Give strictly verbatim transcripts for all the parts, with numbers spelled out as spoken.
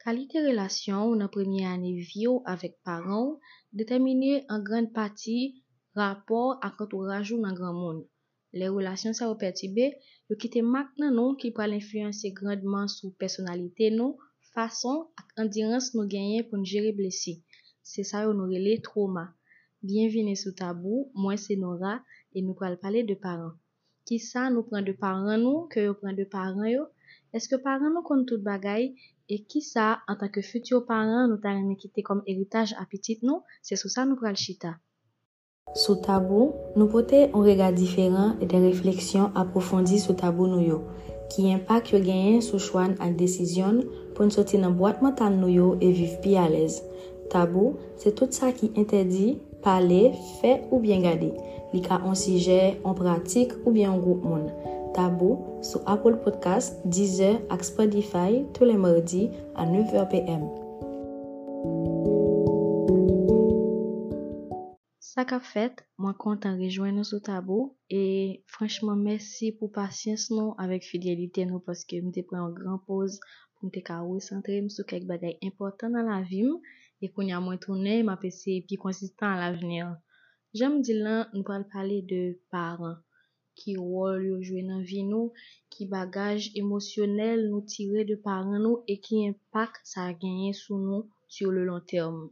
Kalite relasyon w nan premye ane vi w avèk paran w detèmine an grann pati rapò ak antouraj ou nan granmoun. Lè relasyon sa yo pètibe, yo kite mak nan nou ki pral enfliyanse grandman sou pèsonalite nou, fason ak andirans nou genyen pou n jere blesi. Se sa yo nou rele twoma. Byenvini sou Tabou, mwen se Nora e nou pral pale de paran. Kisa nou pran de paran nou ke yo pran de paran yo? Èske paran nou konn tout bagay? E kisa, antanke fiti paran, nou ta renmen kite kòm eritaj a pitit nou? Se sou sa nou pral chita. Sou Tabou, nou pote yon rega diferan e de refleksyon apwofondi sou tabou nou yo, ki enpak yo genyen sou chwa n ak desizyon n pou n soti nan bwat mantal nou yo e viv pi alèz. Tabou, se tout sa ki entèdi, pale, fè oubyen gade. Li ka yon sijè, yon pratik oubyen yon gwoup moun. Tabou, sou Apple Podcast, Deezer ak Spotify, tou lè madi a nèf è p m. Sa k ap fèt? Mwen kontan rejwenn nou sou Tabou e franchman mèsi pou pasyans nou avèk fidelite nou paske m te pran yon gran poz pou m te ka resantre m sou kèk bagay enpòtan nan lavi m e kounye a mwen tounen m ap eseye pi konsistan alavni an. Jan m di l lan, nou pral pale de paran. Ki wòl yo jwe nan vi nou, ki bagaj emosyonèl nou tire de paran nou e ki enpak sa genyen sou nou sur le long terme.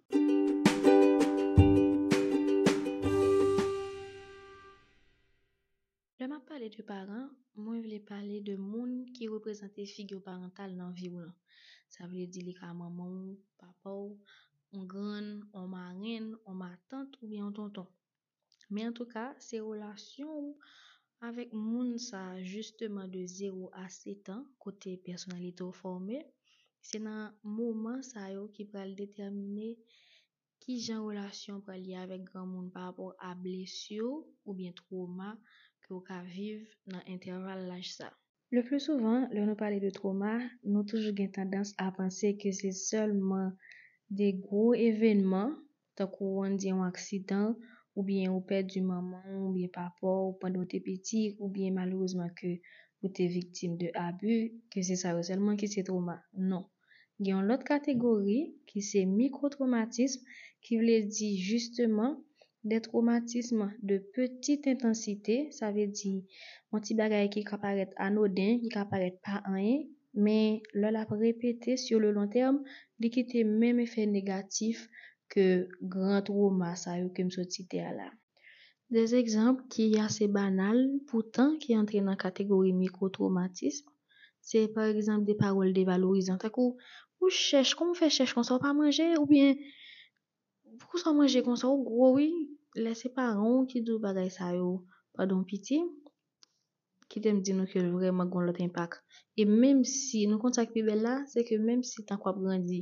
Lè m ap pale de paran, mwen vle pale de moun ki reprezante figi parantal nan vi w lan. Sa vle di li ka manman w, papa w, yon grann, yon marenn, yon matant oubyen yon tonton. Men antouka, se relasyon w avèk moun sa a, jisteman de zewo a sèt an, kote pèsonalite w fòme. Se nan moman sa yo ki pral detèmine kijan relasyon w pral ye avèk granmoun pa rapò a blesi oubyen twoma ke w ka viv nan entèval laj sa. Le pli souvan, lè nou pale de twoma, nou toujou gen tandans a panse ke se sèlman de gwo evènman, tankou ann di yon aksidan, oubyen ou pèdi manman w oubyen papa w pandan w te piti, oubyen malerezman ke ou te viktim de abi, ke se sa yo sèlman ki se twoma. Non. Gen yon lòt kategori ki se mikwotwomatism, ki vle di jisteman de twomatism de petite intensité, sa vle di yon ti bagay ki ka parèt anoden, ki ka parèt pa anyen, men lè l ap repete sur le long terme, li kite menm efè negatif ke gran twoma sa yo ke m sot site a la. De egzanp ki ase banal, poutan ki antre nan kategori mikwotwomatism, se pa egzanp de pawòl devalorizan, tankou ou chèch, kòman w fè chèch konsa, ou pa manje, oubyen poukisa w manje konsa, ou gwo wi. Lè se paran w ki di w bagay sa yo pandan w piti, kite m di nou ke l vrèman gen yon lòt enpak. E menm si, nou konn sa k pi bèl la, se ke menm si tank w ap grandi,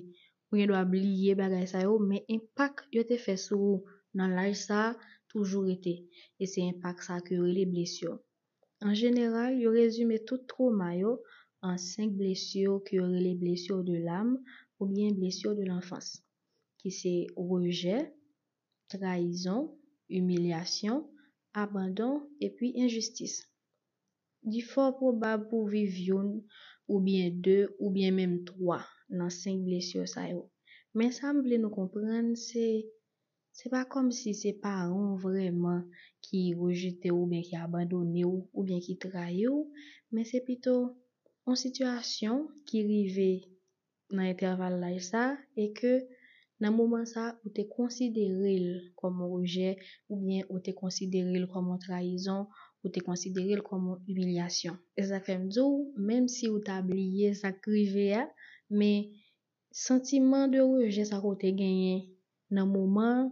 ou gen dwa bliye bagay sa yo, men enpak yo te fè sou ou nan laj sa a toujou rete. E se enpak sa a ke yo rele blesi. An jeneral, yo rezime tout twoma yo an senk blesi ke yo rele blessures de l'âme oubyen blessures de l'enfance, ki se rejè, trayizon, imilyasyon, abandon, epi enjistis. Li fò pwobab pou w viv youn, oubyen de, oubyen menm twa nan senk blesi sa yo. Men sa m vle nou konprann, se, se pa kòmsi se paran w vrèman ki rejte w oubyen ki abandone w oubyen ki trayi w, men se pito yon sitiyasyon ki rive nan entèval laj sa a e ke nan moman sa a, ou te konsidere l kòm yon rejè oubyen ou te konsidere l kòm yon trayizon, ou te konsidere l kòm yon imilyasyon. E sa k fè m di w, menm si ou ta bliye sa k rive a, men santiman de rejè sa ke w te genyen nan moman an,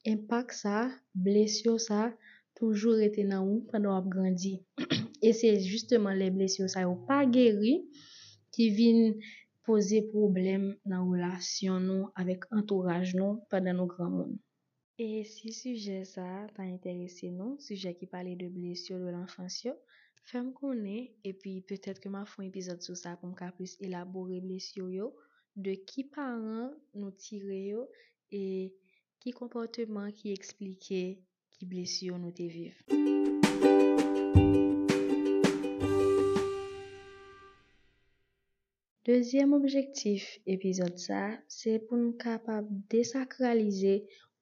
enpak sa a, blesi sa a, toujou rete nan ou pandan w ap grandi. E se jisteman lè blesi sa yo pa geri ki vin poze pwoblèm nan relasyon nou avèk antouraj nou pandan nou granmoun. E si sijè sa a ta enterese nou, sijè ki pale de blesi de lanfans yo, fè m konnen, epi petèt ke m a fè yon epizòd sou sa pou m ka plis elabore blesi yo, de ki paran nou tire yo, e ki konpòteman ki eksplike ki blesi yo nou te viv. Dezyèm objektif epizòd sa a, se pou n kapab desakralize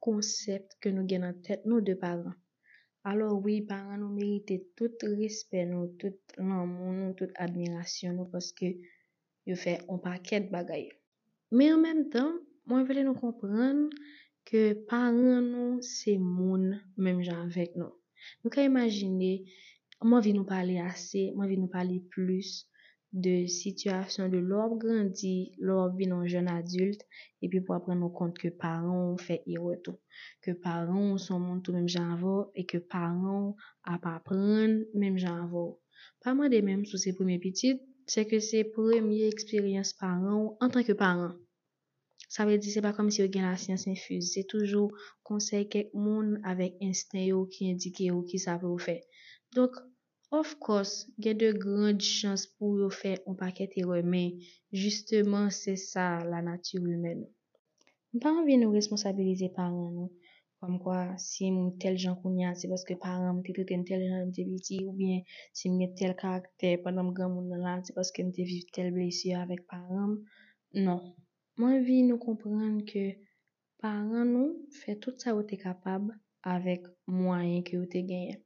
konsèp ke nou gen nan tèt nou de paran. Alò wi, paran nou merite tout respè nou, tout lanmou nou, tout admirasyon nou, paske yo fè on pakèt bagay. Men an menm tan, mwen vle nou konprann ke paran nou se moun menm jan avèk nou. Nou ka imajine, m anvi nou pale ase, m anvi nou pale plis de sitiyasyon de lè w ap grandi, lè w ap vin yon jèn adilt, epi pou w ap rann ou kont ke paran w fè erè tou, ke paran w se yon moun tou menm jan avè w, e ke paran w ap aprann menm jan avè w. Pa mande menm si w se premye pitit, sèke se premye eksperyans paran w antanke paran. Sa vle di se pa kòmsi yo gen lasyans enfiz, se toujou konsèy kèk moun avèk ensten yo ki endike yo kisa pou yo fè. Donk, of course, gen de grand chans pou yo fè yon pakèt erè, men jisteman se sa lanati imèn. M pa anvi nou responsabilize paran nou, kòmkwa si m tèl jan kounye a, se paske paran m te trete m tèl jan lè m te piti, oubyen si m gen tèl karaktè pandan m granmoun nan la, se paske m te viv tèl blesi avèk paran m. Non. Mwen anvi nou konprann ke paran nou fè tout sa yo te kapab avèk mwayen ke yo te genyen.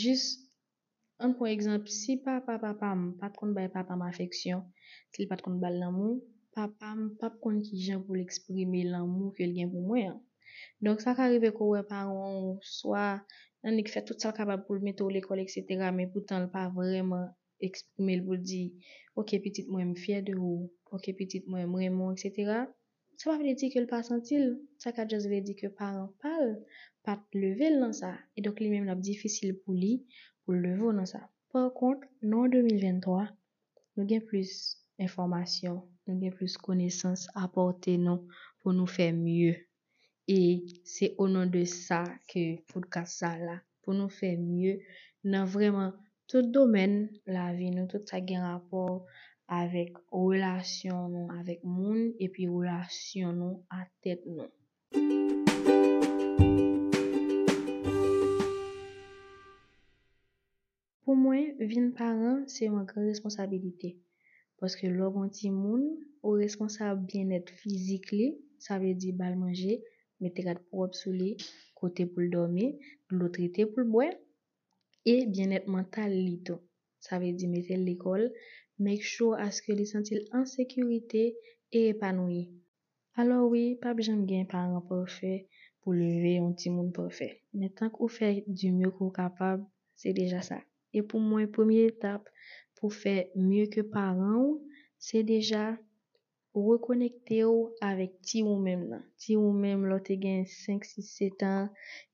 Jis, ann pran egzanp, si papa papa m pa t konn bay papa m afeksyon, si l pa t konn ba l lanmou, papa m p ap konn kijan pou l eksprime lanmou ke l gen pou mwen an. Donk, sa ka rive ke w wè paran w swa annik fè tout sa l kapab pou l mete w lekòl, etsetera, men poutan l pa vrèman eksprime l pou l di, "Oke, pitit mwen, m fyè de ou. Oke, pitit mwen, m renmen w," etsetera. Sa pa vle di ke l pa santi l. Sa ka just vle di ke paran pa l pa t leve l nan sa. E donk, li menm, l ap difisil pou li, pou l leve w nan sa. Pa kont, nan de mil venntwa, nou gen plis enfòmasyon, nou gen plis konesans a pòte nou pou nou fè mye. E se o non de sa ke podcast sa la, pou nou fè mye nan vrèman tout domèn lavi nou, tout sa gen rapò avèk relasyon nou avèk moun, epi relasyon nou a tèt nou. Pou mwen, vin paran se yon gran responsabilite. Paske lè w gen yon timoun, ou responsab byennèt fizik li, sa vle di ba l manje, mete rad pwòp sou li, kote pou l dòmi, dlo trete pou l bwè, e byennèt mantal li tou. Sa vle di mete l lekòl, make sure aske li santi l an sekirite e epanoui. Alò wi, p ap janm gen paran pafè pou leve yon timoun pafè. Men tank ou fè du mieux ke w kapab, se deja sa. E pou mwen, premye etap pou fè mye ke paran w, se deja rekonekte w avèk ti ou menm nan. Ti ou menm, lè w te gen senk, sis, sèt an,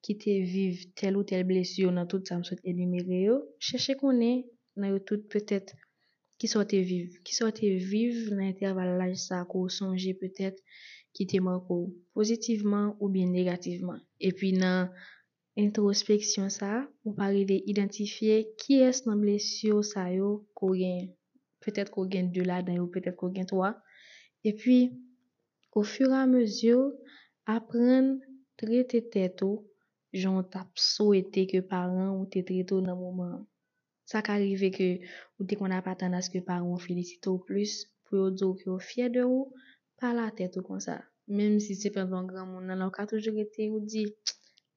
ki te viv tèl ou tèl blesi yo nan tout sa m sot enimere yo, chèche konnen nan yo tout petèt kisa w te viv, kisa w te viv nan entèval laj sa ke w sonje petèt ki te make w pozitivman oubyen negativman. Epi nan entwospeksyon sa, ou pa rive idantifye kiyès nan blesi w sa yo ke w genyen. Petèt ke w gen de ladan yo, petèt ke w gen twa. Epi, ofiramezi, aprann trete tèt ou jan w t ap swete ke paran w te trete w nan moman an. Sa ka rive ke ou te konn ap atann aske paran w felisite w plis, pou yo di w ke yo fyè de ou, pa latèt ou konsa. Menm si se pandan w granmoun nan la, ou ka toujou rete ou di,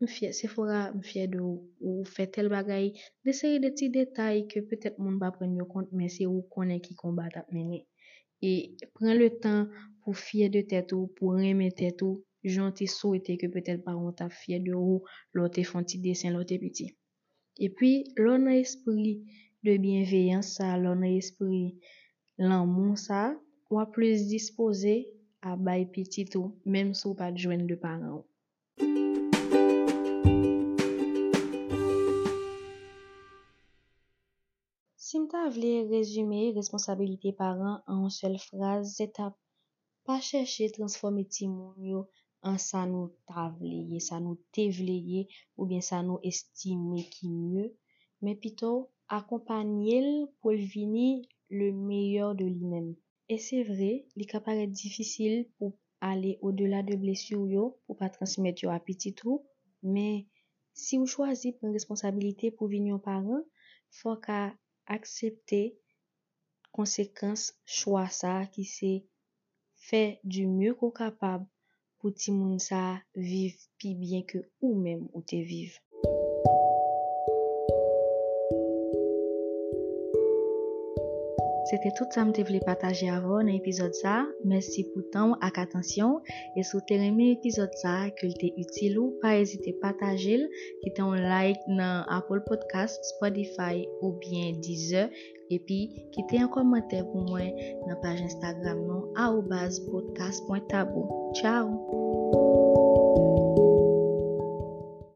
"M fyè, Sephora, m fyè de ou, ou fè tèl bagay," de seri de ti detay ke petèt moun pa pran yo kont, men se ou konnen ki konba t ap mennen. E pran le tan pou fyè de tèt ou, pou renmen tèt ou, jan w te swete ke petèt paran w t ap fyè de ou, lè w te fè yon ti desen, lè w te piti. Epi, lè w nan espri de byenveyans sa, lè w nan espri lanmou sa, w ap plis dispoze a bay pitit ou, menm si w pa t jwenn de paran w. Si m ta vle rezime responsabilite paran an yon sèl fraz, se t ap pa chèche transfòme timoun yo an sa nou ta vle ye, sa nou te vle ye, oubyen sa nou estime ki mye, men pito akonpanye l pou l vini le meilleur de li menm. E se vre, li ka parèt difisil pou ale odela de blesi w yo, pou pa transmèt yo a pitit ou, men si w chwazi pran responsabilite pou vin yon paran, fò w ka aksepte konsekans chwa sa a ki se fè du mieux ke w kapab pou timoun sa a viv pi byen ke ou menm ou te viv. Se te tout sa m te vle pataje avè w nan epizòd sa a. Mèsi pou tan w ak atansyon w. E si w te renmen epizòd sa a, ke l te itil ou, pa ezite pataje l, kite yon like nan Apple Podcast, Spotify oubyen Deezer. Epi, kite yon kòmantè pou mwen nan paj Instagram nou, arobase podcast point tabou. Tchao!